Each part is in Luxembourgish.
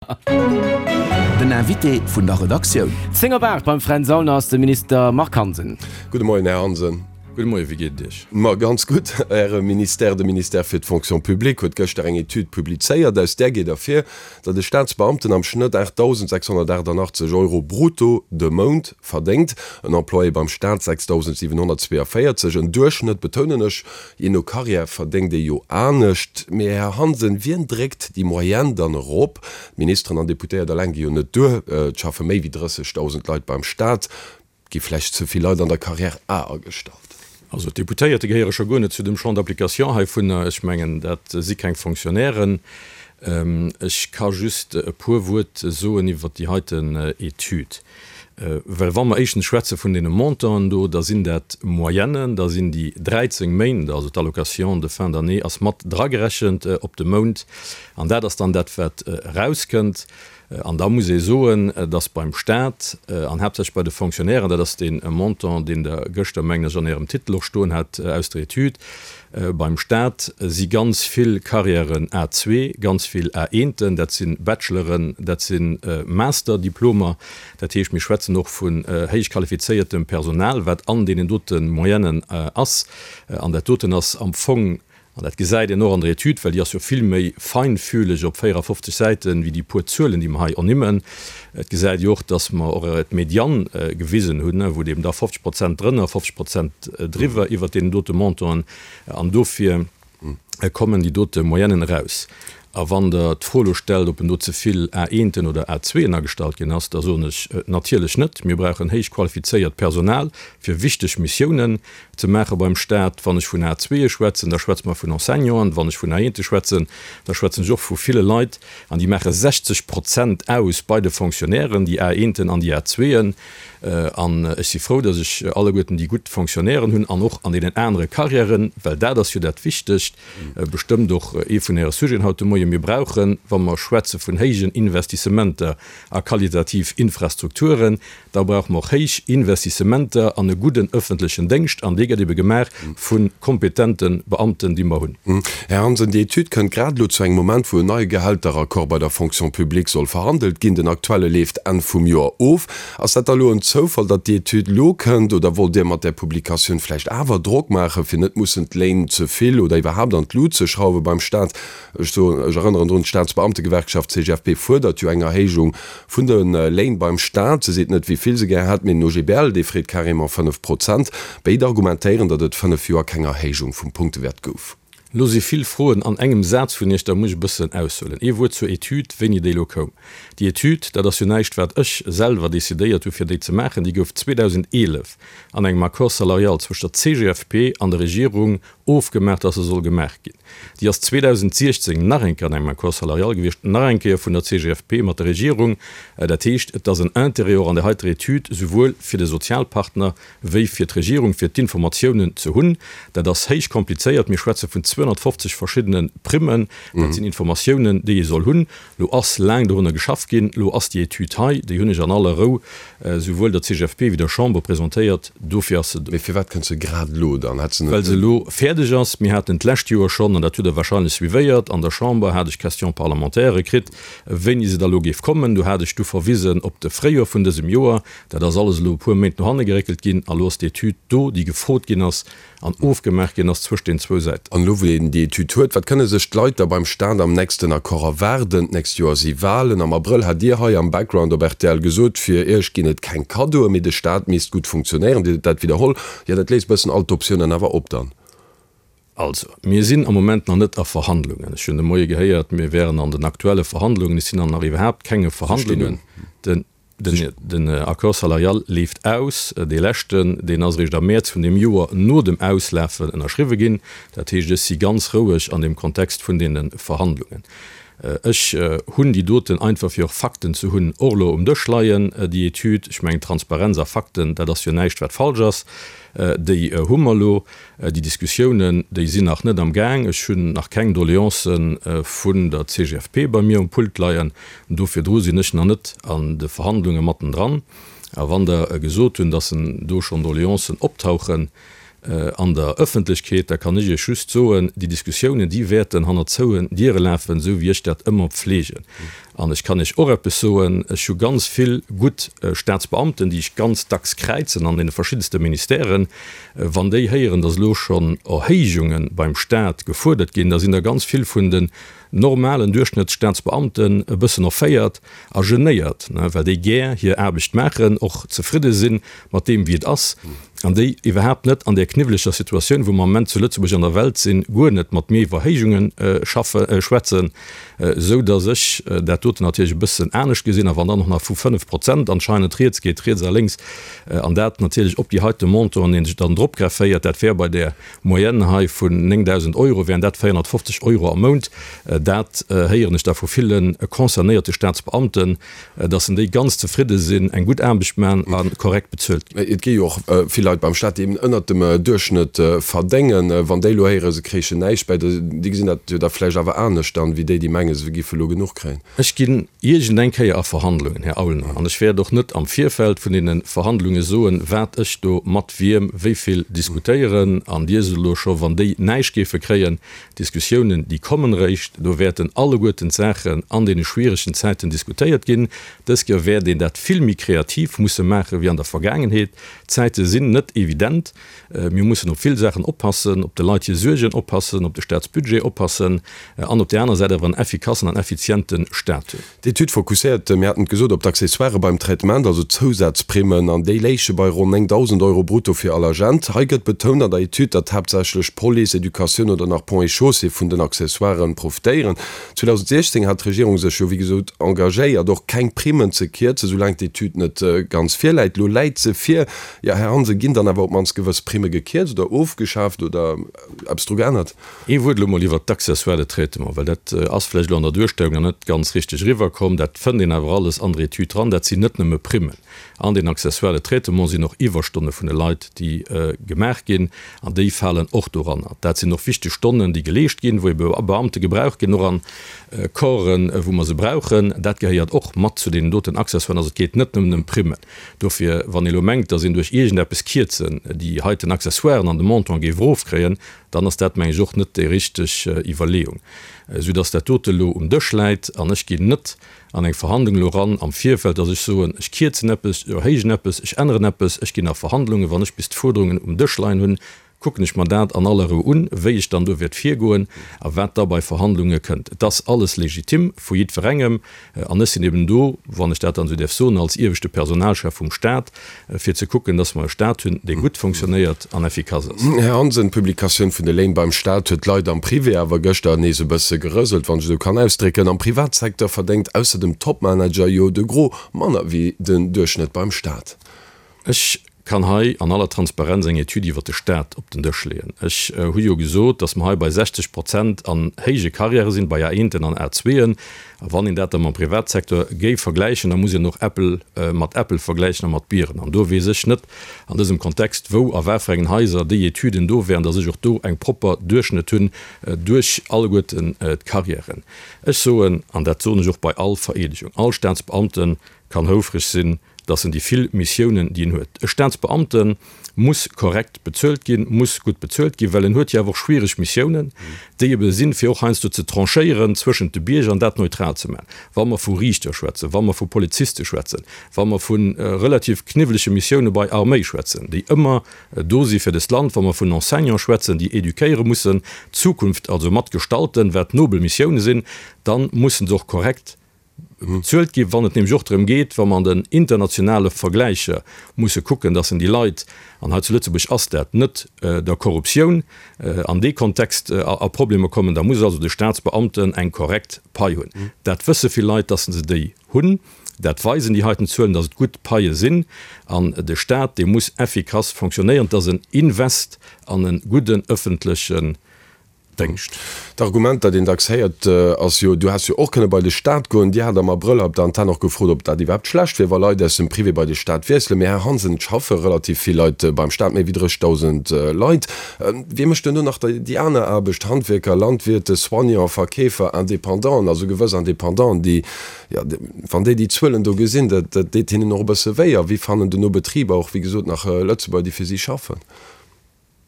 Den Invité vun der Redaktioun. 10 op 8 beim Fränz Aulner ass de Minister Marc Hansen. Gudde Moien, Här Hansen. Gudde Moien, wéi geet et Iech? Ma ganz gutt. Äre Ministère, de Ministère fir d'Fonction publique, huet gëschter eng Etüd publizéiert. Aus där geet ervir, datt e Staatsbeamten am Schnëtt 8.688 Euro brutto de Mount verdéngt, en Employé beim Staat 6.742. En Duerchschnëtt, betounen ech, Jee no Carrière verdéngt ee jo anescht. Mee Här Hansen, wien dréckt déi Moyenne dann erop? D'Ministeren an Deputéiert eleng gi jo net duer. Et schaffe méi wéi 30.000 Leit beim Staat. Gi vläicht ze vill Leit an der Carrière A agestallt? Also d'Deputéierte gehéiere scho guer net zu dem Champ d'application heivunner. Ech mengen, dat si keng Fonctionnairen. Ech ka just e puer Wuert soen iwwert déi heiten Etüd. Well wa mer éischtens schwätze vun deene Montanten do, da sinn dat Moyennen, da sinn déi 13 Méint, also d'Allocation de fin d'année ass mat dragerechent op de Mount, an dat ass dann dat, wat erauskënnt. An da muss ee soen, dass beim Stat an haaptsächlech bei de Fonctionnairen, dat ass dee Montant, deen Der gëschter, mengen ech, an Ärem Titel och stoen hat aus der Etüd, beim Stat si ganz vill Carrièren A2, ganz vill A1ten, dat si Bacheloren, dat si Masterdiplomer. Dat heescht, mir schwätzen och vun héich qualifizéiertem Personal, wat an deenen dote Moyennen ass. An dat doten ass am Fong, an dat gesäit een och an der Etüd, well déi ass jo vill méi feinfühleg op 54 Säiten, wéi déi puer Zuelen, déi mer hei ernimmen. Et gesäit ee och, dass mer och d'Médiane gewisen hunn, wou et eben da 50 Prozent drënner, 50 Prozent driwwer iwwert deenen dote Montanten. An dofir kommen déi dote Moyennen eraus. A wann Der d'Fro elo stellt, ob en do ze vill A-eenten oder A-zweeën agestallt ginn ass, da soen ech, Natierlech net. Mir brauchen héich qualifizéiert Personal, fir wichteg Missiounen ze maache beim Stat. Wann ech vun A-zweeë schwätzen, da schwätze mer vun Enseignanten. Wann ech vun A-eente schwätzen, da schwätzen ech och vu ville Leit, an déi maache 60 Prozent aus bei de Fonctionnairen, déi A-eenten an déi A-zweeën. An ech si frou, datt ech alleguerten déi gutt Fonctionnairen hunn an och an deenen anere Carrièren, well dat ass jo dat Wichtegt, bestëmmt och ee vun Äre Sujeten haut de Moien, Mir brauchen, wa mer schwätze vun héijen Investissementer a qualitativ Infrastrukturen, da brauche mer och héich Investissementer an e gudden öffentlechen Déngscht, an dee gëtt ebe gemaach vu kompetente Beamten, déi mer hunn. Här Hansen, déi Etüd kënnt grad elo zu engem Moment, wou en neie Gehälteraccord bei der Fonction publique soll verhandelt ginn. Den aktuelle leeft Enn vum Joer of. Ass dat da lo en Zoufall, datt déi Etüd lo kënnt, oder wollt Dir mat där Publikatioun vläicht awer Drock maachen, fir net mussen d'Léin ze vill oder iwwerhaapt an d'Lut ze schrauwe beim Staat? Ech soen, ech erënneren drun, d'Staatsbeamtegewerkschaft CGFP fuerdert jo eng Erhéijung vun de Léin beim Staat. Se seet net, wéi vill se gär hätt, mee den OGBL, dee freet carrément 5 Prozent. Béid argumentéieren, datt et 5 Joer keng Erhéijung vum Punktewäert gouf. Lo si vill Froen an engem Saz vun Iech, da muss ech e bëssen aushuelen. Ee Wuert zur Etüd, wéini déi elo koum. Déi Etüd, dat ass jo näischt, wat ech selwer decidéiert hu fir déi ze maachen, déi gouf 2011 an engem Accord salarial zwëscht der CGFP an der Regierung ofgemaach, dass se soll gemaach ginn. Déi ass 2016 nach eng Kéier an engem Accord salarial gewiescht, nach eng Kéier vun der CGFP mat der Regierung. Dat heescht, et ass en Intérêt och an där heiter Etüd, souwuel fir de Sozialpartner wéi fir d'Regierung, fir d'Informatiounen ze hunn. Dat ass héich komplizéiert. Mir schwätze vun 250 verschiddene Primmen. Dat sinn Informatiounen, déi ee soll hunn. Lo ass laang dorunner geschafft ginn. Lo ass déi Etüd hei. Déi hunn ech an aller Rou souwuel der CGFP wéi der Chamber presentéiert. Dofir ass se do. Mee firwat kënnt se grad elo dann? Hätt se net. Well se elo fäerdeg ass. Mir haten d'lescht Joer schonn, an dat hutt Der wahrscheinlech suivéiert, an der Chamber hat ech Question-parlementairë kritt, wéini se da lo géif kommen. Do hat ech du verwisen op de Fréijoer vun dësem Joer. Dat ass alles elo e puer Méint no hanne geréckelt ginn. A lo ass d'Etüd do, déi gefrot ginn ass an ofgemaach ginn ass zwëscht den zwou Säiten. An elo, wou een déi Etüd huet, wat kënne sech d'Leit da beim Staat am nächsten Accord erwaarden? D'nächst Joer si Walen. Am Abrëll hat Dir hei am Background op rtl gesot, fir Iech ginn et keng Kaddoen, mee de Staat misst gutt funktionéieren. Dir hutt dat widderholl. Jo, dat léisst bëssen all d'Optiounen awer op dann. Also, mir sinn am Moment nach net a Verhandlungen. Ech hunn de Moie gehéiert, mir wären an den aktuelle Verhandlungen. Ech sinn an nach iwwerhaapt kenge Verhandlungen. Den. Den Accord salarial leeft aus. Dee leschten, deen ass eréischt am Mäerz vun deem Joer no dem Auslafen ënnerschriwwe ginn. Dat heescht, ech si ganz roueg an deem Kontext vun deene Verhandlungen. Ech hunn déi doten einfach, fir och Fakten ze hunn, och elo um Dësch leien, déi Etüd. Ech mengen, Transparenz a Fakten, dat ass jo näischt, wat falsch ass. Déi hu mer elo. Déi Diskussiounen, déi sinn nach net am Gaang. Ech hunn nach keng Doleancë vun der CGFP bei mir um Pult leien. Do virdru sinn ech nach net an de Verhandlunge mattendran. A wann Der gesot hunn, datt do schonn Doleancen optauchen an der Ëffentlechkeet, da kann ech Iech just soen, déi Diskussiounen, déi wäerten hanner zouen Diere lafen, esou wéi ech dat ëmmer pflegen. An ech kann Iech och eppes soen, Ech hu ganz vill gutt Staatsbeamten, déi ech ganz dacks kräizen an deene verschiddenste Ministèren. Wann déi héieren, datt elo schonn Erhéijunge beim Staat gefuerdert ginn, da sinn der ganz vill vun den normalen Duerchschnëttsstaatsbeamten e bëssen erféiert a genéiert, well déi gär hir Aarbecht maachen, och zefridde si mat deem, wéi et ass, an déi iwwerhaapt net an där kniwweleger Situatioun, wou mer am Moment zu Lëtzebuerg an der Welt sinn, guer net mat mir iwwer Erhéijunge schaffe schwätzen, esou datt ech dat doten natierlech e bëssen anescht gesinn. A wann dann och nach vu 5 Prozent anscheinend rieds geet, riets a lénks, an dat natierlech op déi heite Montanten, dee sech dann drop grefféiert, dat wär bei där Moyenne hei vun 9.000 Euro wären dat 450 Euro am Mount. Dat héieren ech da vu ville concernéierte Staatsbeamten, dass en déi ganz zefridde sinn, eng gutt Aarbecht maachen a korrekt bezuelt ginn. Et gi jo och vill Leit beim Staat, déi eben ënnert dem Duerchschnëtt verdéngen. Wann déi elo héieren, se kréichen näischt bäi, déi gesinn dat jo da vläicht awer anescht dann, wéi déi, déi mengen, se giffe elo genuch kréien. Ech ginn iergend eng Kéier a Verhandlungen, Här Aulner, an ech wäert och net am Virfeld vun deene Verhandlunge soen, wat ech do mat wiem wéi vill diskutéieren. An Dir sot elo scho, wann déi näischt géife kréien, d'Diskussiounen, déi kommen eréischt, do wäerten alleguerten d'Saachen an deene schwieregen Zäiten diskutéiert ginn. Dës Kéier wäert een dat vill méi kreativ musse maache wéi an der Vergaangenheet. D'Zäite sinn net evident. Mir mussen op vill Saachen oppassen, op de Leit hir Suergen oppassen, op de Staatsbudget oppassen an op där aner Säit awer en effikassen an effiziente Staat hunn. D'Etüd fokusséiert, mir haten et gesot, op d'Accessoirë beim Traitement, also d'Zousazprimmen, an déi léiche bei ronn 9.000 Euro brutto fir all Agent. Hei gëtt betount an der Etüd, datt haaptsächlech Police, Educatioun oder nach Ponts et Chaussées vun den Accessoiren profitéieren. 2016 hat d'Regierung sech jo wéi gesot engagéiert, och keng Primmen ze kierzen, soulaang d'Etüd net ganz virläit. Elo läit se vir. Jo, Här Hansen, ginn dann awer op d'mannst gewëss Primme gekierzt oder ofgeschaaft oder eppes dru geännert? Ee Wuert elo mol iwwert d'Accessoires de traitement, well dat ass vläicht elo an der Duerstellung nach net ganz richteg eriwwerkomm. Dat fënnt een awer alles an der Etüd dran. Dat sinn net nëmme Primmen. An den Accessoires de traitement sinn och Iwwerstonne vun de Leit, déi gemaach ginn, an déi falen och doranner. Dat sinn och wichteg Stonnen, déi geleescht ginn, wou ebe Beamte gebraucht ginn, och an Corpsen, wou mer se brauchen. Dat gehéiert och mat zu deenen doten Accessoiren. Also et geet net nëmmen ëm Primmen. Dofir, wann ee elo mengt, datt een duerch iergendeppes Kierzen déi heiten Accessoiren an de Montant géif erofkréien, dann ass dat, meng ech, och net déi richteg Iwwerleeung. Soudatt dat dote elo um Dësch läit an ech ginn net an eng Verhandlung elo eran am Virfeld, datt ech soen, ech kierzen eppes, ech erhéijen eppes, ech änneren eppes. Ech ginn a Verhandlungen, wann ech bis d'Fuerderungen um Dësch leien hunn, kucken ech mer dat an aller Rou un, wéi ech dann do wäert virgoen a wat da bei Verhandlunge kënnt. Et ass alles legitim vu jiddwerengem an ech sinn eben do, wann ech dat dann esou däerf soen, als ieweschte Personalchef vum Stat, fir ze kucken, dass mer e Stat hunn, dee gutt fonctionnéiert an effikass ass. Här Hansen, d'Publikatioun vun de Léin beim Stat huet d'Leit am Privé awer gëschter nees e bësse gerëselt, wann ech esou kann ausdrécken. Am Privatsecteur verdéngt ausser dem Topmanager jo de Gros manner wéi den Duerchschnëtt beim Stat. Ech kann hei an aller Transparenz eng Etüd iwwert de Stat op den Dësch leeën. Ech hu jo gesot, datt mer hei bei 60 Prozent an héije Karriäre sinn, bei A-eenten an A-zweeën. A wann een dat da mam Privatsecteur géif vergläichen, da muss een och Äppel mat Äppel vergläichen a mat Bieren. An do weess ech net an dësem Kontext, wou a wat fir engen Haiser déi Etüden do wären, datt ech och do eng propper Duerchschnëtt hunn duerch alleguerten d'Karriären. Ech soen, an dat soen ech och bei all Vereedegung, all Staatsbeamte kann houfreg sinn, dass en déi vill Missiounen, déi en huet, e Staatsbeamte muss korrekt bezuelt ginn, muss gutt bezuelt ginn, well en huet jo awer och schwiereg Missiounen, déi ebe sinn, fir och heiansdo ze tranchéieren zwëschent de Bierger an dat neutral ze maachen. Wa mer vu Riichter schwätzen, wa mer vu Poliziste schwätzen, wa mer vu relativ kniwwelege Missioune bei Arméi schwätzen, déi ëmmer do si fir dëst Land, wa mer vun Enseignants schwätzen, déi éduquéiere mussen, d'Zukunft also mat gestalten, wat nobel Missioune sinn, da mussen se och korrekt bezuelt ginn, wann et nämlech och drëm geet, wa mer an den internationale Vergläicher musse kucken, dass en déi Leit, an hei zu Lëtzebuerg ass dat, net der Korruptioun an dee Kontext a Problemer kommen, da muss also de Staatsbeamten eng korrekt Pai hunn. Dat wësse vill Leit, dass se déi hunn. Dat weisen déi heiten Zuelen, dass et gutt Paie sinn. An de Staat, dee muss effikass fonctionnéieren. Et ass en Invest an e gudden ëffentlechen Déngscht. D'Argument, dat een dacks héiert, ass jo, du häss jo och kënne bei de Staat goen. Dir hat am Abrëll hei op der Antenn och gefrot, ob dat iwwerhaapt schlecht wier, wa Leit aus dem Privé bei de Staat wiesselen. Mee Här Hansen, et schaffe relativ vill Leit beim Staat, méi wéi 30.000 Leit. Wie mécht duerno nach déi aner Aarbecht, Handwierker, Landwirte, Soignants, Verkeefer, Independanten, also gewëss Independanten, déi, jo, wann déi déi Zuelen do gesinn, dat deet hinnen och e bësse wéi. A wéi fannen duerno Betriber och, wéi gesot, nach Lëtzebuerger, déi fir si schaffen?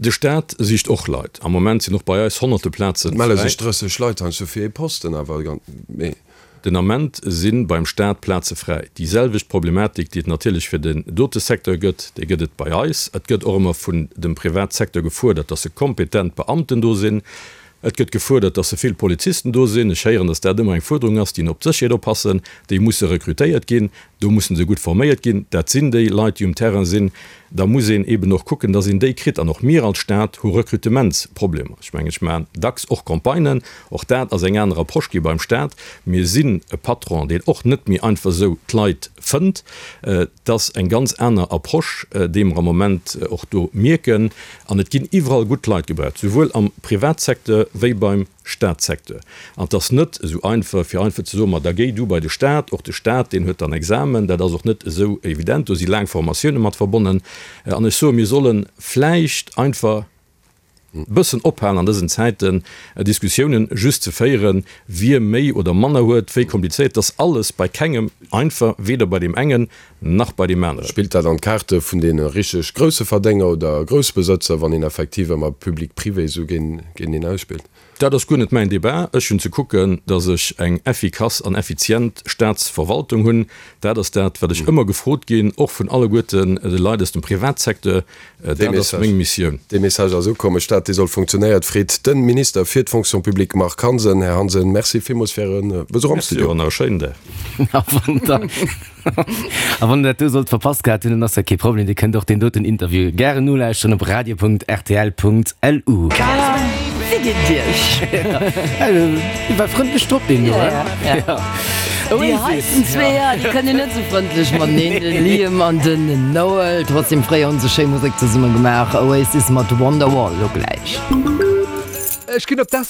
De Staat sicht och Leit. Am Moment sinn och bei eis honnerte Plazen Et melle sech fräi. 30 Leit heiansdo fir ee Posten, awer mee. Den Ament si beim Staat Plaze fräi. Déi selwecht Problematik, déi et natierlech fir den dote Secteur gëtt, déi gëtt et bei eis. Et gëtt och ëmmer vun dem Privatsecteur gefuerdert, dass se kompetent Beamten do sinn. Et gëtt gefuerdert, dass se vill Polizisten do sinn. Ech héieren, dass dat ëmmer eng Fuerderung ass, déi op d'Sécherheet oppassen. Déi musse rekrutéiert ginn. Do musse se gutt forméiert ginn. Dat sinn déi Leit, déi um Terrain sinn. Da muss een eeben och kucken, dass een déi kritt. An och mir als Stat hu Rekrutementsproblemer. Ech mengen, ech maachen dacks och Campagnen. Och dat ass eng aner Approche gi beim Stat. Mir sinn e Patron, deen och net méi einfach esou d'Leit fënnt. Et ass eng ganz aner Approche, déi mer am Moment och do mierken. An et ginn iwwerall gutt Leit gebraucht, souwuel am Privatsecteur wéi beim Staatssecteur. An et ass net esou einfach, fir einfach ze soen, ma da géi du bei de Staat. Och de Staat, deen huet dann Examen. Dat ass och net esou evident. Do si laang Formatioune mat verbonnen. An ech soen, mir solle vläicht einfach e bëssen ophalen an dësen Zäiten, Diskussiounen just ze féieren, wie méi oder manner huet, wéi komplizéiert. Et ass alles bei kengem einfach, weder bei deem engen nach bei deem aneren. Spillt dat an d'Kaarte vun deene richteg grousse Verdénger oder Groussbesëtzer, wann een effektiv ëmmer public-privé esou géinteneen ausspillt? Dat ass guer net mäin Débat. Ech hunn ze kucken, datt ech eng effikass an effizient Staatsverwaltung hunn. Dat ass dat, wat ech ëmmer gefrot ginn, och vun alleguerten de Leit aus dem Privatsecteur. Dat ass meng Missioun. Dee Message ass ukomm. E Staat, dee soll funktionéiert, freet de Minister fir d'Fonction publique Marc Hansen. Här Hansen, Merci villmools fir Äre Besuch am Studio. Merci och an nach e schéinen Dag. A wann der dat do sollt verpasst gehat hunn, dann ass dat kee Problem, Dir kënnt och deen doten Interview gären nolauschteren op radio.rtl.lu. Wéi geet et Iech? Dee war frëndlech drop, deen do, he? Ja. Déi heiten zweeër, déi kënnen net sou frëndlech mateneen, de Liam an den Noel. Trotzdem, fréier hunn se schéi Musek zesumme gemaach. Oasis mat Wonderwall lo gläich. Ech ginn op d'Essen.